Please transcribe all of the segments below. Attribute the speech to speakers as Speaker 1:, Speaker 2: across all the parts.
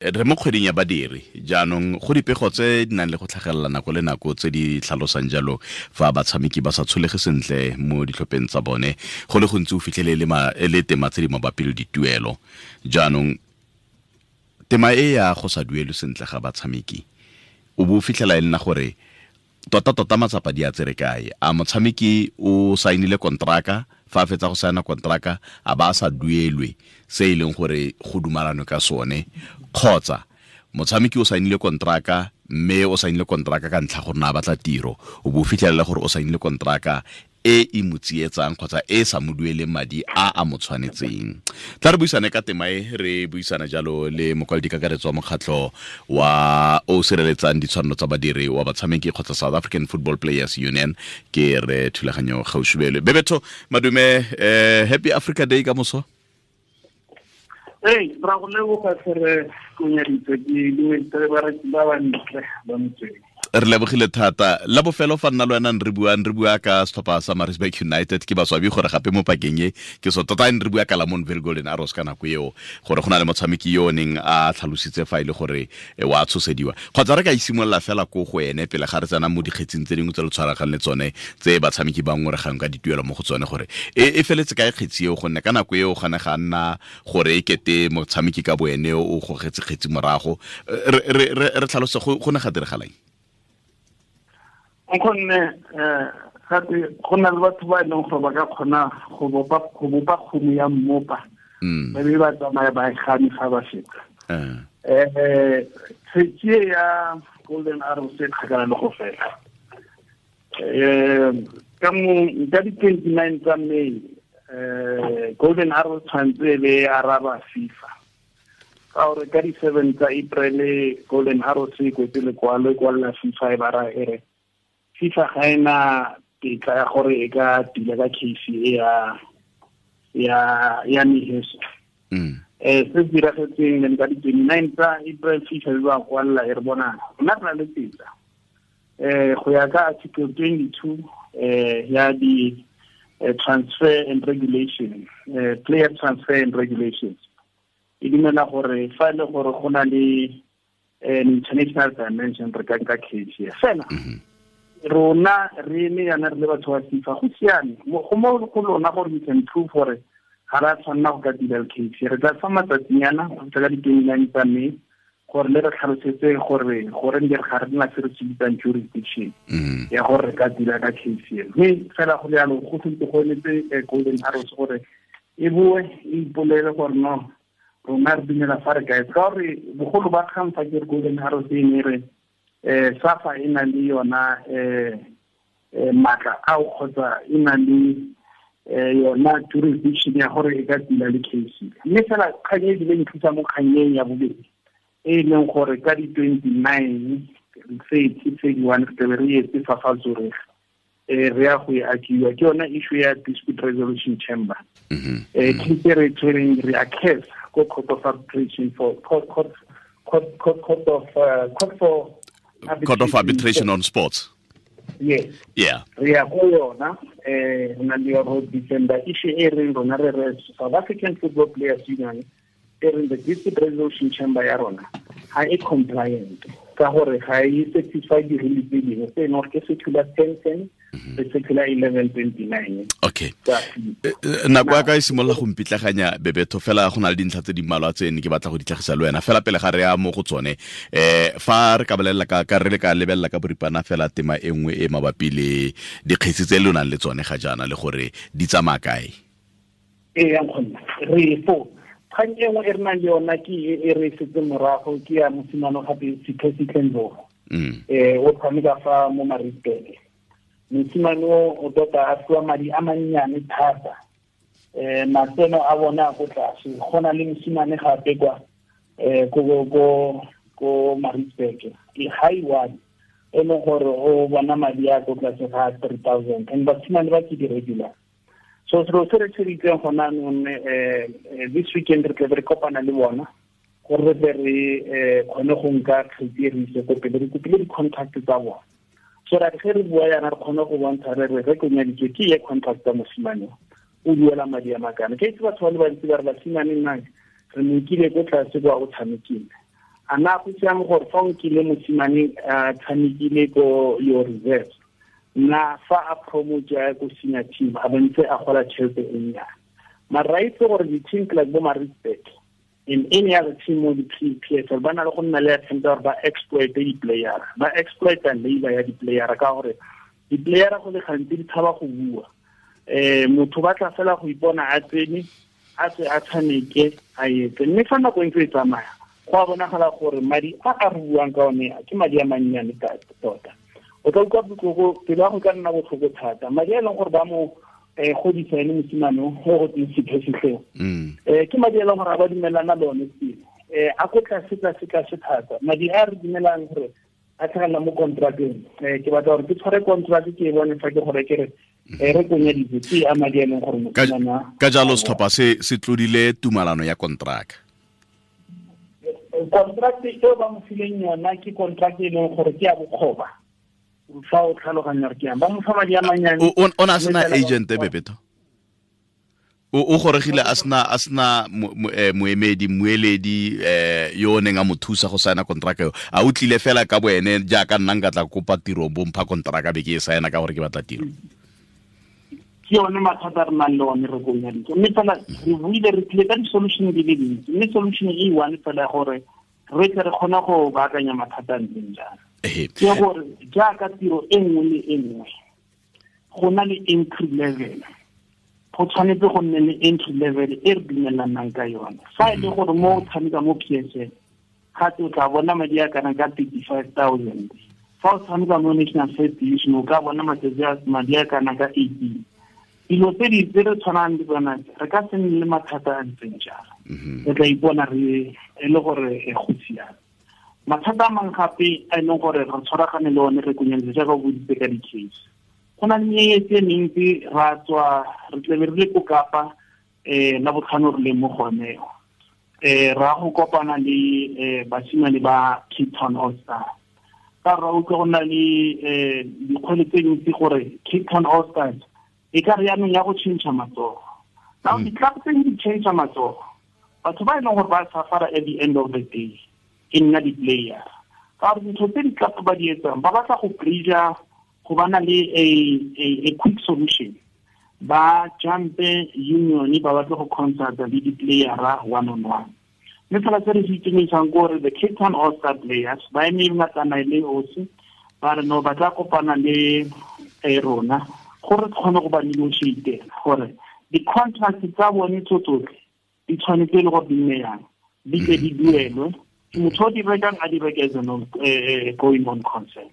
Speaker 1: Re mo kgweding ya badiri jaanong, go dipego tse di nang le go tlhagelela nako le nako tse di tlhalosang jalo fa batshameki ba sa tsholege sentle mo ditlhopheng tsa bone, go le gontsi o fitlhele e le tema tse di mabapi le dituelo. Jaanong tema e ya go sa duelwe sentle ga batshameki, o bo o fitlhela e nna gore tota-tota matsapa di a tsere kae? A motshameki o saenile kontraka, fa a fetsa go saena kontraka a ba a sa duelwe se e leng gore go dumalanwe ka sone, kgotsa motshameki o saenile kontraka mme o saenile kontraka ka ntlha gore na a batla tiro, o bo o fitlhelela gore o saenile kontraka e e mo tsietsang kgotsa e sa mo dueleng madi a a mo tshwanetseng. Tla re buisane ka tema e, re buisana jalo le mokwaledi kakaretso wa mokgatlho wa o sireletsang ditshwanelo tsa badiri wa batshameki kgotsa South African Football Players Union, ke re Thulaganyo Gaoshubelwe. Bebetho, madume, happy Africa Day ka moso.
Speaker 2: Hey, ra go leboga tlhere Konyaditse, ke dumedisa bareki ba ba ntle ba motsweng.
Speaker 1: Re lebogile thata. La bofelo fa nna le wena re bua ka setlhopha sa Maritzburg United, ke baswabi gore gape mo pakeng e ke so tota re bua ka Lamontville Golden Arrows ka nako eo, gore go na le motshameki yo o neng a tlhalositse fa e le gore wa tshosediwa. Kgotsa re ka isimolola fela ko go ene pele ga re tsena mo dikgetsing tse dingwe tse le tshwaragang le tsone tse batshameki ba ngoregang ka dituelo mo go tsone, gore e feletse kae kgetsi eo, gonne ka nako eo gane ga nna gore e kete motshameki ka boene o gogetse kgetsi morago. Re tlhalose go ne ga diragalang?
Speaker 2: Nkgonne, gape go na le batho ba e leng gore ba ka kgona go bopa kgomo ya mmopa, ba be ba tsamaya ba e gane fa ba feta. Kgetsi e ya Golden Arrows e kgakala le go fela. Ka di-29 tsa May, Golden Arrows tshwanetse e be e araba FIFA. Ka gore ka di-7 tsa April Golden Arrows e kwetse lekwalo e kwalela FIFA e ba ra e re FIFA ga ena tetla ya gore e ka tila ka case e ya Miheso. Se diragetseng then ka di-29 tsa April FIFA e ba kwalela e re bona rona re na le tetla. Go ya ka article 22 ya di transfer and regulation, player transfer and regulations, e dumela gore fa e le gore go na le an international dimension re ka nka case ya fela. Rona re eme yana re le batho ba FIFA, go siame go mo go lona gore we can prove gore ga re a tshwanela go ka dira le case. Re tla fa matsatsinyana go fitlha ka di-29 tsa May gore le re tlhalosetse gore goreng re ga re nna se re se bitsang jurisdiction ya gore re ka dira ka case eno. Mme fela go le jalo go sentse go emetse Golden Arrows gore e boe e ipolele gore no rona re dumela fa re kae, ka gore bogolo ba kgang fa ke re Golden Arrows e ne re SAFA e na le yona maatla ao kgotsa e na le yona jurisdiction ya gore e ka tila le case. Mme fela kgang e ebile nthusa mo kgannyeng ya bobedi e leng gore ka di-29 30 31 re tlabe re etse fa fa Zurich, re ya go e akiwa ke yona issue ya dispute resolution chamber. Case re tshwereng re a case ko court of arbitration for court court court court court of court for
Speaker 1: Court of Arbitration on Sports.
Speaker 2: Yes.
Speaker 1: Yeah.
Speaker 2: Re ya go yona, re na le yona December issue e reng rona re re South African Football Players Union e reng the dispute resolution chamber ya rona ga e compliant ka gore ga e satisfy di-rule tse dingwe tse e leng gore ke circular 1010 le circular 1129.
Speaker 1: Okay. Nako ya ka e simolola go mpitlaganya Bebetho, fela go na le dintlha tse di mmalwa tse ne ke batla go di tlhagisa le wena fela pele ga re ya mo go tsone. Fa re ka bolelela ka re le ka lebelela ka boripana fela tema e nngwe e mabapi le dikgetsi tse le nang le tsone ga jaana le gore di tsamaya kae.
Speaker 2: Ee, nkgonne re fo kgang e nngwe e re nang le yona ke e re setse morago ke ya mosimane gape Sipho Ndlovu. O tshameka fa mo Maritzburg. Mosimane o tota a fiwa madi a mannyane thata. Matseno a bona a ko tlase. Go na le mosimane gape kwa ko Maritzburg ke high one e leng gore o bona madi a ko tlase ga 3,000, and basimane ba ke di-regular. So selo se re tsheditseng gona anong, this weekend re tlabe re kopana le bona gore re tle re kgone go nka kgetsi e re ise ko pele, re kopile di-contract tsa bona so that ge re bua yana re kgone go bontsha re re re konyaditswe ke ye contract tsa mosimane o duela madi a makana. Ke itse batho ba le bantsi ba re basimane nna re mo nkile ko tlase kwa o tshamekile, A na go siame gore fa o nkile mosimane a tshamekile ko your reserve, na fa a promote ya ko senior team a bontse a gola tšhelete e nnyane. Mara ra itse gore di-team like bo Maritzburg in any other team mo di-PSL ba na le go nna le attempt gore ba exploit di-player, ba exploit labor ya di-player, ka gore di-player go le gantsi di tshaba go bua. Motho ba tla fela go ipona a tsene a tswe a tshameke a etse, mme fa nako e ntse e tsamaya go a bonagala gore madi a a re buang ka one ke madi a mannyane tota. O tla utlwa botlhoko, pelo ya go ka nna botlhoko thata. Madi a e leng gore ba mo godisa ene mosimane o go teng sephesitleng, ke madi a e leng gore a ba dumelana le one pele, a ko tlase tlase tlase thata. Madi a re dumelang gore a tlhagelela mo contracteng, ke batla gore ke tshware contract ke e bone fa ke gore ke re re konyeditse ke a madi a e leng gore mosimane.
Speaker 1: Ka jalo setlhopha se se tlodile tumalano ya contract.
Speaker 2: Contract eo ba mo fileng yona ke contract e leng gore ke ya bokgoba. Fa o tlhaloganya gore ke yang ba mo fa madi a mannyane.
Speaker 1: O na sena agent Bebetho? O goregile a sena moemedi, mmueledi yo o neng a mo thusa go saena contract eo. A o tlile fela ka boene jaaka nna nka tla kopa tiro bo mpha contract be ke e saena ka gore ke batla tiro.
Speaker 2: Ke yone mathata a re nang le one re konyaditse, mme fela re buile re tlile ka di-solution di le dintsi, mme solution e one fela gore re tle re kgone go baakanya mathata a ntseng jalo. Ke gore jaaka tiro e nngwe le e nngwe go na le entry level, go tshwanetse go nne le entry level e re dumelanang ka yone. Fa e le gore mo o tshameka mo PSL gape o tla bona madi a kana ka 35,000, fa o tshameka mo National First Division o ka bona madi a kana ka 18. Dilo tse di tse re tshwanang le tsona re ka se nne le mathata a ntseng jalo. Re tla ipona re e le gore go siame. Mathata a mangwe gape a e leng gore re tshwaragane le one re konyeletse jaaka o boditse ka di-case. Go na le meetse e mentsi, ra tswa re tlebe re le ko Kapa la botlhano re leng mo gone, ra go kopana le basimane ba Cape Town All Stars. Ka ra utlwa go na le dikgwele tse dintsi gore Cape Town All Stars e ka re yaanong ya go change matsogo. Now di-club tse di change matsogo, batho ba e leng gore ba suffer at the end of the day e nna di-player. Ka gore dintho tse di-club ba di etsang, ba batla go bridge-a go bana le a quick solution. Ba jumpe union ba batla go consult-a le di-player-a one on one. Mme fela se re se itumelisang ke gore the Cape Town All Star players ba eme ngatana le osi, ba re no ba tla kopana le rona gore re kgone go ba negotiate gore di-contract tsa bone tso tsotlhe di tshwanetse le gore di nne yang, di tle di duelwe. Motho o di rekang a di reke as a going on concern.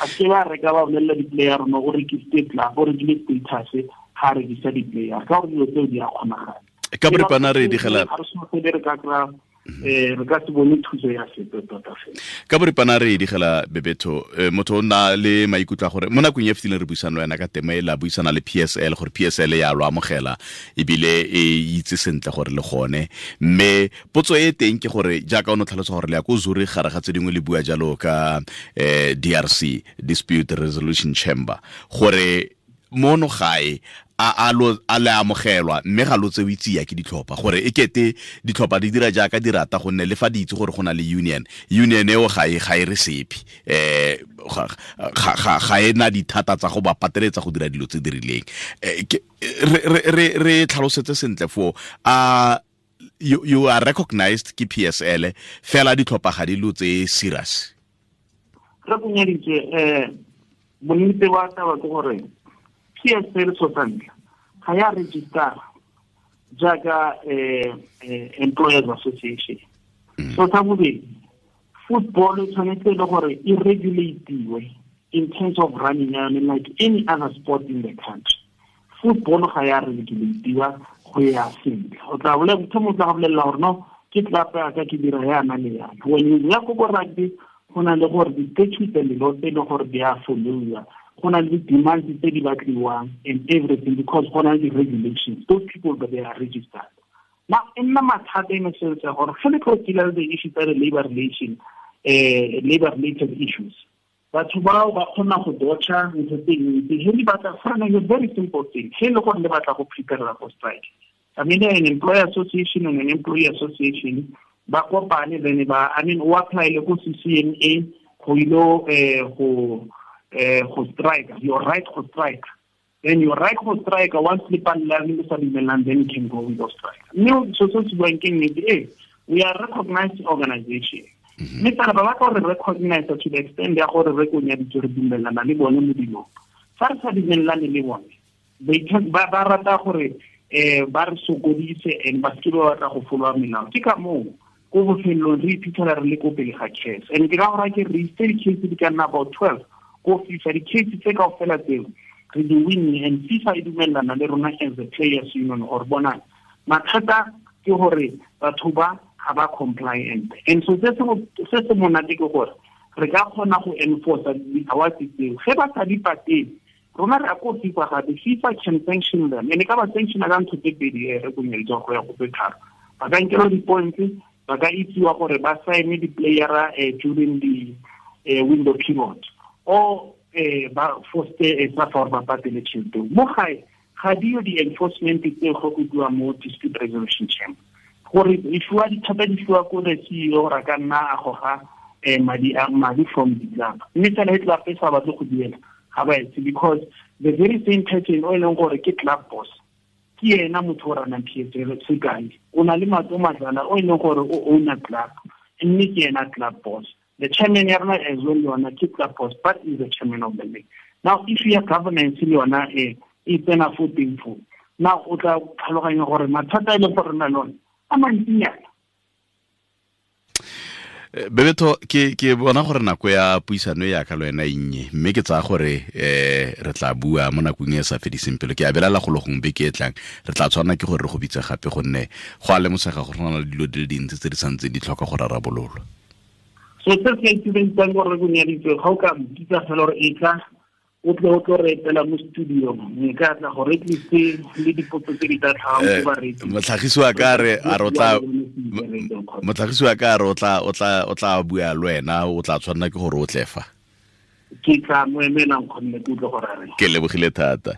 Speaker 2: A se ba reka ba bolelela di-player no o rekisitse club, o rekile status, ga a rekisa di-player, ka gore dilo tseo di a kgonagala.
Speaker 1: Ka boripana re digela
Speaker 2: ga re seno re ka kry-a re ka se bone thuso ya sepe tota fela.
Speaker 1: Ka boripana re digela Bebetho, motho o nna le maikutlo a gore mo nakong e fetileng re buisana le wena ka tema e la buisana le PSL gore PSL ya lo amogela ebile e itse sentle gore le gone, mme potso e teng ke gore jaaka o ne o tlhalosa gore le ya ko Zurich gare ga tse dingwe le bua jalo ka DRC, Dispute Resolution Chamber, gore mono gae a le amogelwa mme ga lo tsewe tsia ke ditlhopha, gore e kete ditlhopha di dira jaaka di rata gonne le fa di itse gore go na le union eo ga e re sepe, ga e na dithata tsa go ba pateletsa go dira dilo tse di rileng. Re tlhalosetse sentle foo, a you are recognized ke PSL fela ditlhopha ga di lo tse serious.
Speaker 2: Re konyeditse bonnete ba taba ke gore PSL so santle ga ya register jaaka Employers Association. So sa bobedi, football e tshwanetse le gore e regulatiwe in terms of running yone like any other sport in the country. Football ga ya regulatiwa go ya sentle. O tla bolela motho mo tla go bolelela gore no ke club ya ka ke dira yana le yana. When you ya ko rugby go na le gore di-statutes and the laws tse e leng gore di a followiwa, go na le di-demands tse di batliwang and everything, because go na le di-regulations. Those people that they are registered. Now e nna mathata in a sense ya gore ge le tlo deal le the issues tsa labor relation, labor related issues, batho bao ba kgona go dodge-a ntho tse dintsi. He le batla for a very simple thing, he le gore le batla go prepare for strike. I mean, an employer association and an employee association Ba kopane then ba, I mean, o apply le ko CCMA go ilo go go strike, your right go strike. Then your right go strike, once le palela le sa dumelang, then you can go with strike. Mme so se se buang ke nnete, we are recognized organization. Mme fela ba batla gore recognize to the extent ya gore re konyaditse re dumelana le bone mo dilong. Fa re sa dumelane le bone, ba rata gore ba re sokodise and ba seke ba batla go followa melao. Ke ka moo ko bofelong re iphitlhela re le ko pele ga case. And ke ka gore ke re itse di-case di ka nna about 12 ko FIFA, di-case tse kaofela tseo re di winne, and FIFA e dumellana le rona as a players union or bona mathata ke gore batho ba ga ba compliant. And so se se monate ke gore re ka kgona go enforce di-awards tseo. Ge ba sa di patele, rona re ya ko FIFA gape, FIFA can sanction them. And e ka ba sanctiona ka ntho tse pedi, re konyeletswa go ya go tse tharo. Ba ka nkelwa di-points, ba ka itsiwa gore ba sign di-playera during the window period, or ba foste sa fa gore ba patele tšhelete. Mo gae ga dio di-enforcement tse go bua mo dispute resolution chamber, gore e fiwa dithata di fiwa ko the CEO gore a ka nna a goga madi from the club. Mme fela e club e sa batle go duela, ga ba etse, because the very same person o e leng gore ke club boss ke ena motho o ranang PSL. Sekai, o na le Matlo Madlala o e leng gore o owner club, mme ke ena club boss. The chairman ya rona as well le yona ke club boss, but is the chairman of the league. Now if ya governance le yona e tsena fo teng fo, now o tla tlhaloganya gore mathata e leng gore re na le one a mantsinyana.
Speaker 1: Bebetho, ke bona gore nako ya puisano ya ka le wena e nnye, mme ke tsaya gore re tla bua mo nakong e sa fediseng pelo. Ke a belela go le gongwe beke e tlang re tla tshwanela ke gore re go bitse gape, gonne go a lemosega gore go na le dilo di le dintsi tse di santseng di tlhoka go rarabololwa.
Speaker 2: So se se itumedisang gore re konyaditswe, ga o ka mpitsa fela gore e tla o tle o tlo re etela mo studio, nka tla gore at least le dipotso tse di tla tlhagang ko bareetsi.
Speaker 1: Motlhagisi wa ka re a re o tla, motlhagisi wa ka re o tla bua le wena, o tla tshwanela ke gore o tle fa.
Speaker 2: Ke tla mo emela nkgonne ke utlwe gore a reng.
Speaker 1: Ke lebogile thata.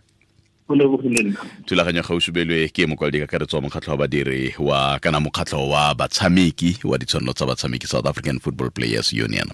Speaker 2: Go lebogile nna.
Speaker 1: Thulaganyo gausubelwe ke mokwaledi kakaretso wa mokgatlho wa badiri wa kana mokgatlho wa batshameki wa ditshwanelo tsa batshameki, South African Football Players Union.